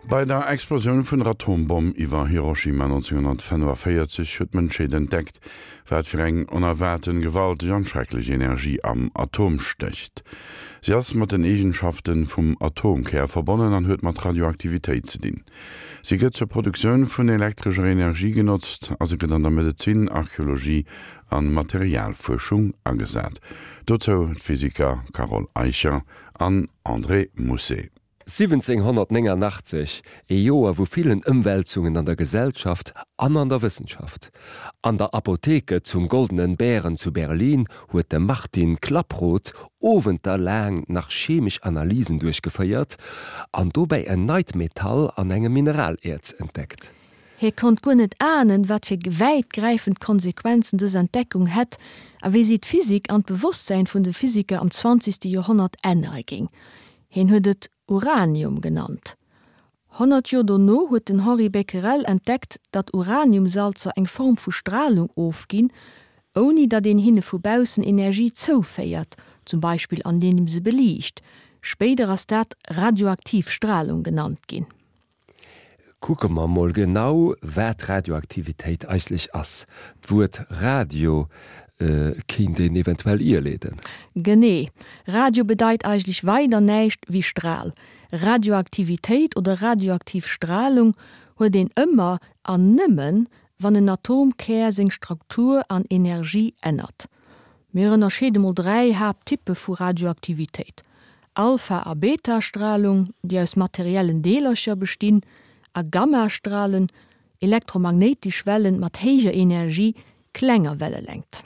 Bei der Explosioun vun der Atombomm iwwer Hiroshima 1945 huet d'Mënschheet entdeckt, wat fir eng onerwaarten, gewalteg an schrecklech Energie am Atom stécht. Si ass mat den Eegenschaften vum Atomkär verbonnen an huet mat Radioaktivitéit ze dinn. Si gëtt zur Produktioun vun elektrescher Energie genotzt a se gëtt an der Medezin, Archeologie an Materialfuerschung agesat. Dozou d'Physiker Carole Eicher an André Mousset. 1789, ee Joer vu villen Ëmwälzungen an der Gesellschaft an an der Wëssenschaft. An der Apotheke zum Goldenen Bären zu Berlin huet de Martin Klaproth Owenter laang nach chemesch Analysen duerchgeféiert an dobäi en neit Metall an engem Mineraläerz entdeckt. Hie konnt guer net ahnen, wat fir wäitgräifend Konsequenzen dës Entdeckung hätt a wéi si d'Physik an d'Bewosstsäin vun de Physiker am zwanzegste Joerhonnert ännere géing. Hien huet et Uranium genannt. 100 Joer dono huet den Henri Becquerel entdeckt, datt Uraniumsalzer eng Form vu Stralung ofginn, ouni datt een hinne vu baussen Energie zouféiert, zum Beispill andeem se beliicht. Spéider ass dat radioaktiv Stralung genannt ginn. Kucke mer mol genau, wat Radioaktivitéit eigentlech ass. D'Wuert Radio kéint een eventuell ierleeden. Genee. Radio bedeit eigentlech weider näischt wéi Stral. Radioaktivitéit oder radioaktiv Stralung huet een ëmmer an nëmmen, wann en Atomkär seng Struktur an Energie ännert. Mir ënnerscheede mol 3 Haapttyppe vu Radioaktivitéit, Alpha a Beta-Stralung, déi aus materiellen Deelercher bestinn, a Gamma-Stralen, elektromagnéitesch Wellen mat héijer Energie, klenger Wellelängt.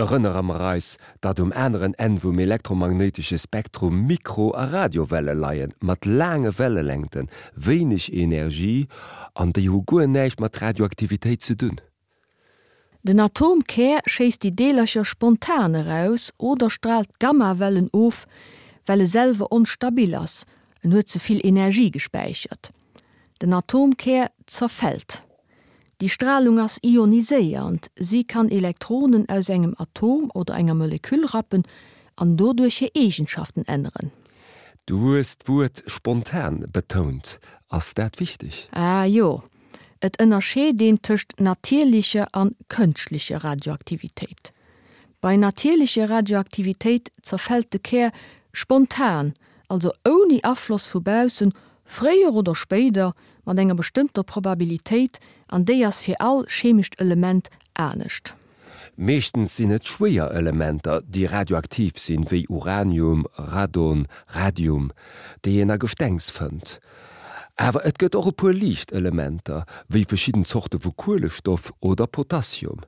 Erënnere mer eis, datt um aneren Enn vum elektromagnéitesche Spektrum Mikro a Radiowelle leien, mat laange Wellelängten, wéineg Energie, an déi hu guer näischt mat Radioaktivitéit ze dunn. Den Atomkär schéisst déi Deelercher spontan eraus oder straalt Gammawellen of, well e selwer onstabil ass, en huet ze vill Energie gespäichert. Den Atomkär zerfält. Déi Stralung ass ioniséiernd, si kann Elektronen aus engem Atom oder enger Moleküll rappen an doduerch hir Eegenschaften änneren. Du hues d'Wuert spontan betount. Ass dat wichteg? Ah jo, Et ënnerscheet een tëscht natierlecher an kënschtlecher Radioaktivitéit. Bei natierlecher Radioaktivitéit zerfält de Kär spontan, also ouni Afloss vu baussen, fréier oder spéider, mat enger bestëmmter Probabilitéit, an déi ass fir all chemescht Element anescht. Meeschtens sinn et schwéier Elementer, déi radioaktiv sinn, wéi Uranium, Radon, Radium, déi een a Gestengs fënnt. Awer et gëtt och e puer liicht Elementer, wéi verschidden Zorte vu Kuelestoff oder Potassium.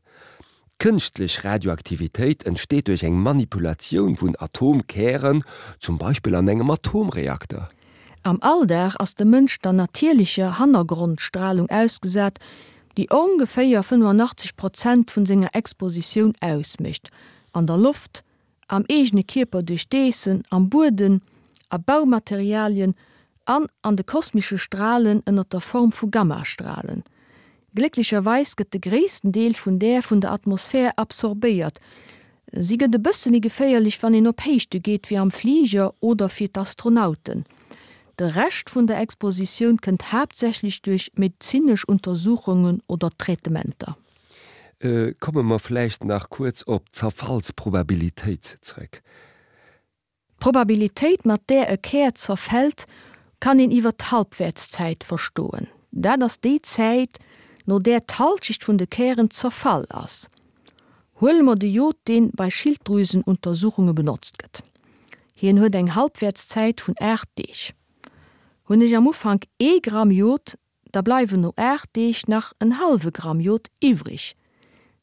Kënschtlech Radioaktivitéit entsteet duerch eng Manipulatioun vun Atomkären, zum Beispill an engem Atomreakter. Am Alldag ass de Mënsch der natierlecher Hannergrondstralung ausgesat, déi ongeféier 85 Prozent vun senger Expositioun ausmécht, an der Loft, am eegene Kierper duerch d'Eessen, am Buedem, a Baumaterialien an an de kosmesche Stralen ënner der Form vu Gammastralen. Glécklecherweis gëtt de gréissten Deel vun där vun der Atmosphär absorbéiert. Si gëtt e bësse méi geféierlech, wann een op Héichte geet, wéi am Fliger oder fir d'Astronauten. De Rescht vun der Expositioun kënnt haaptsächlech duerch medezinesch Untersuchungen oder Traitementer. Komme mer vläicht nach kuerz op d'Zerfallsprobabilitéit zréck. D'Probabilitéit, mat där e Kär zerfält, kann een iwwer d'Halbwäertszäit verstoen. Dat ass déi Zäit, no där d'Halschecht vun de Kären zerfall ass. Huele mer de Jod, deen bei Schilddrüsenuntersuchunge benotzt gëtt. Hien huet eng Halbwäertszäit vun 8 Deeg. Hunn ech am Ufank ee Gramm Jod, da bleiwen no 8 Deeg nach en hallwe Gramm Jod iwwrig.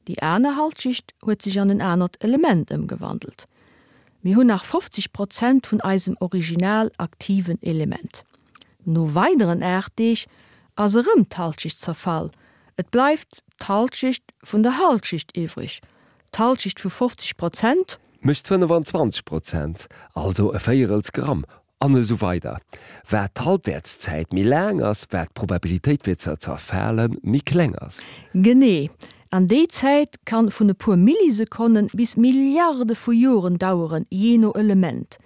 Déi aner Halschecht huet sech an en anert Element ëmgewandelt. Mir hunn nach 50 Prozent vun eisem original aktiven Element. No weideren 8 Deeg ass erëm d'Halschecht zerfall, et bleift d'Halschecht vun der Halschecht iwwrig, d'Halschecht vu 50 Prozent. Mécht 25 Prozent, also e Véierels Gramm, an esou weider Wat d'Halbwäertszäit méi laang ass, wat d'Probabilitéit fir ze zerfale méi kleng ass. Genee, an déi Zäit kann vun e puer Millisekonnen bis Milliarde vu Joren daueren, jee no Element.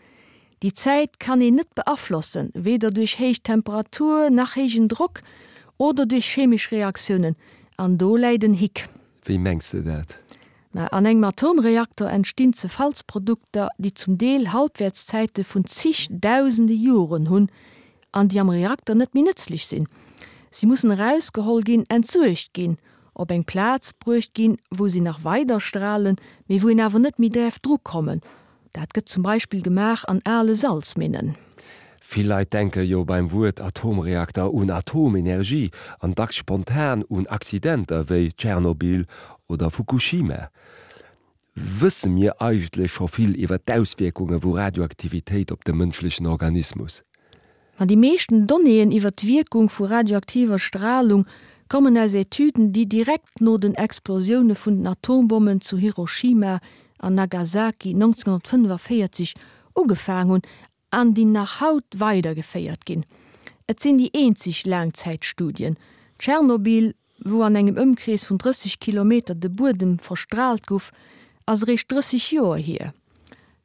Déi Zäit kann een net beaflossen, weder duerch héich Temperatur nach héijen Drock oder duerch chemesch Reaktiounen. An do läit en Hick. Wéi mengs de dat? Mä an engem Atomreaktor entstinn Zerfallsprodukter, déi zum Deel Halbwertszäite vun zig dausende Joren hunn an déi am Reakter net méi nëtzlech sinn. Si mussen erausgeholl ginn, entsuergt ginn, op eng Plaz bruecht ginn, wou si nach weider stralen, mee wou een awer net méi däerf drukommen. Dat gëtt zum Beispill gemaach an ale Salzminnen. Vill Leit denke jo beim Wuert Atomreakter un Atomenergie an dacks spontan un Accidenter wéi Tschernobyl oder Fukushima. Wësse mir eigentlech scho vill iwwer d'Auswierkunge vu Radioaktivitéit op de mënschlechen Organismus? Ma déi meeschten Donnéeën iwwer d'Wierkung vu radioaktiver Stralung kommen aus Etüden, déi direkt no den Explosioune vun den Atombommen zu Hiroshima an Nagasaki 1945 ugefaang hunn an déi nach haut weidergeféiert ginn. Et sinn déi eenzeg Laangzäitstudien. Tschernobyl, wou an engem Ëmkrees vun 30 Kilometer de Buedem verstraalt guff, ass eréischt 30 Joer hier.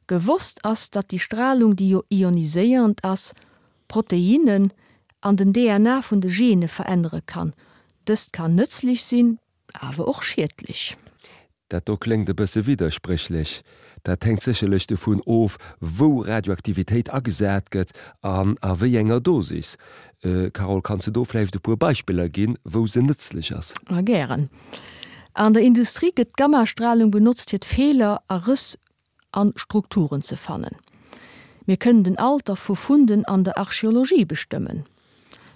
Gewosst ass, datt déi Stralung, déi jo ioniséierend ass, Proteinnen an den DNA vun de Gene verännere kann. Dëst kann nëtzlech sinn, awer och schiedlech. Dat do kléngt e bësse widderspréchlech. Dat hänkt sécherlech dovun of, wou Radioaktivitéit agesat gëtt an a wéi enger Dosis. Carole, kanns de do vläicht e puer Beispiller ginn, wou se nëtzlech ass? Ma gären. An der Industrie gëtt d'Gammastralung benotzt fir d'Feeler a Rëss an Strukturen ze fannen. Mir kënnen den Alter vu Funden an der Archeologie bestëmmen.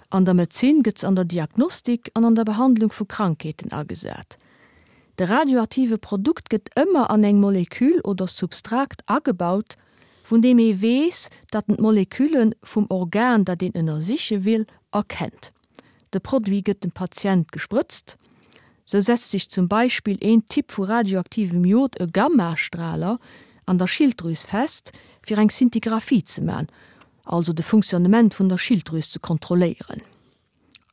An der Medezin gëtt se an der Diagnostik an an der Behandlung vu Krankheeten agesat. De radioaktive Produkt gëtt ëmmer an eng Molekül oder Substrakt agebaut, vun deem ee weess, datt en d'Molekülle vum Organ, dat een ënnersiche will, erkennt. De Produit gëtt dem Patient gesprëtzt. Sou setzt sech zum Beispill een Typ vu radioaktivem Jod, e Gammastraler, an der Schilddrüs fest, fir eng Szintigraphie ze man, also de Funktionnement vun der Schilddrüs ze kontrolléieren.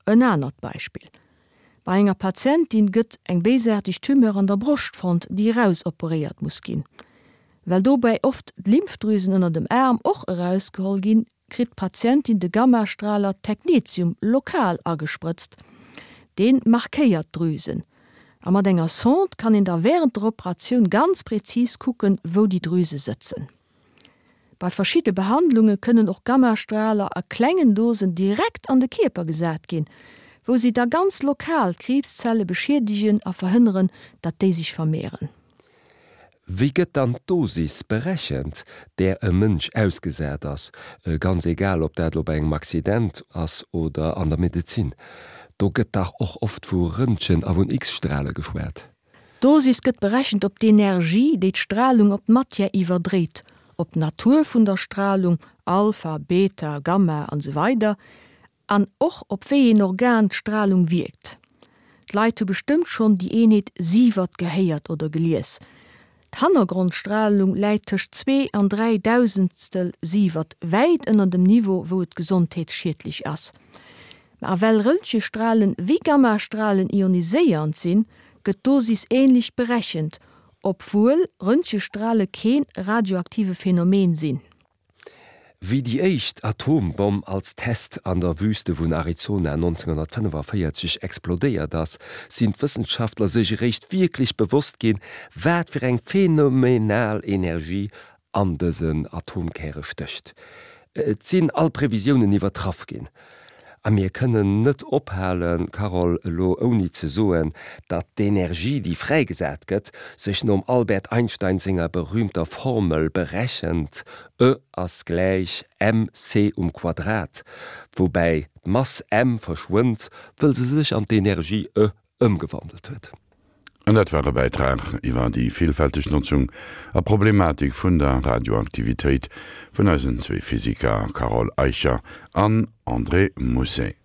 En anert Beispill, Bei enger Patientin gëtt eng béisaarteg Tumeur an der Broscht fonnt, déi erausoperéiert muss ginn. Well dobäi oft d'Lymphdrüsen ënner dem Aarm och erausgeholl ginn, kritt d'Patientin de Gammastraler Technetium lokal agesprëtzt. Deen markéiert d'Drüsen. A mat enger Sonde kann een da wärend der Operatioun ganz präzis kucken, wou déi Drüse sëtzen. Bei verschidde Behandlunge kënnen och Gammastraler a klengen Dosen direkt an de Kierper gesat ginn, wou si da ganz lokal d'Kriibszelle beschiedegen a verhënneren, datt déi sech vermehren. Wéi gëtt dann d'Dosis berechent, där e Mënsch ausgesat ass, ganz egal ob dat elo bei engem Accident ass oder an der Medezin? Do gëtt dach och oft vu Röntgen a vun X-Strale geschwat. D'Dosis gëtt berechent op d'Energie, déi d'Stralung op d'Matière iwwerdréit, op d'Natur vun der Stralung, Alpha, Beta, Gamma, an esou weider An och op wéi een Organ d'Stralung wierkt. D'Leit hu bestëmmt schonn déi Eenheet Sievert gehéiert oder gelies. D'Hannergrondstralung läit tëscht zwee an 3 Dausendstel Sievert, wäit ënner dem Niveau wou et gesondheetsschiedlech ass. Ma a well Röntgestralen wéi Gammastralen ioniséiernd sinn, gëtt d'Dosis ähnlech berechent, obwuel Röntgestrale keen radioaktive Phänomen sinn. Wéi déi éischt Atombomm als Test an der Wüste vun Arizona 1945 explodéiert ass, sinn d'Wëssenschaftler sech eréischt wierklech bewosst ginn, wat fir eng phänomenal Energie an dësen Atomkäre stécht. Et sinn all Previsiounen iwwertraff ginn. A mir kënnen net ophalen, Carole, elo ouni ze soen, datt d'Energie, déi fräigesat gëtt, sech nom Albert Einstein senger berühmter Formel berechent, E ass gläich mc um Quadrat, woubäi d'Mass m verschwënnt, wëll se sech an d'Energie E ëmgewandelt huet. An dat war e Bäitrag iwwer déi villfälteg Notzung a Problematik vun der Radioaktivitéit vun eisen zwee Physiker Carole Eicher an André Mousset.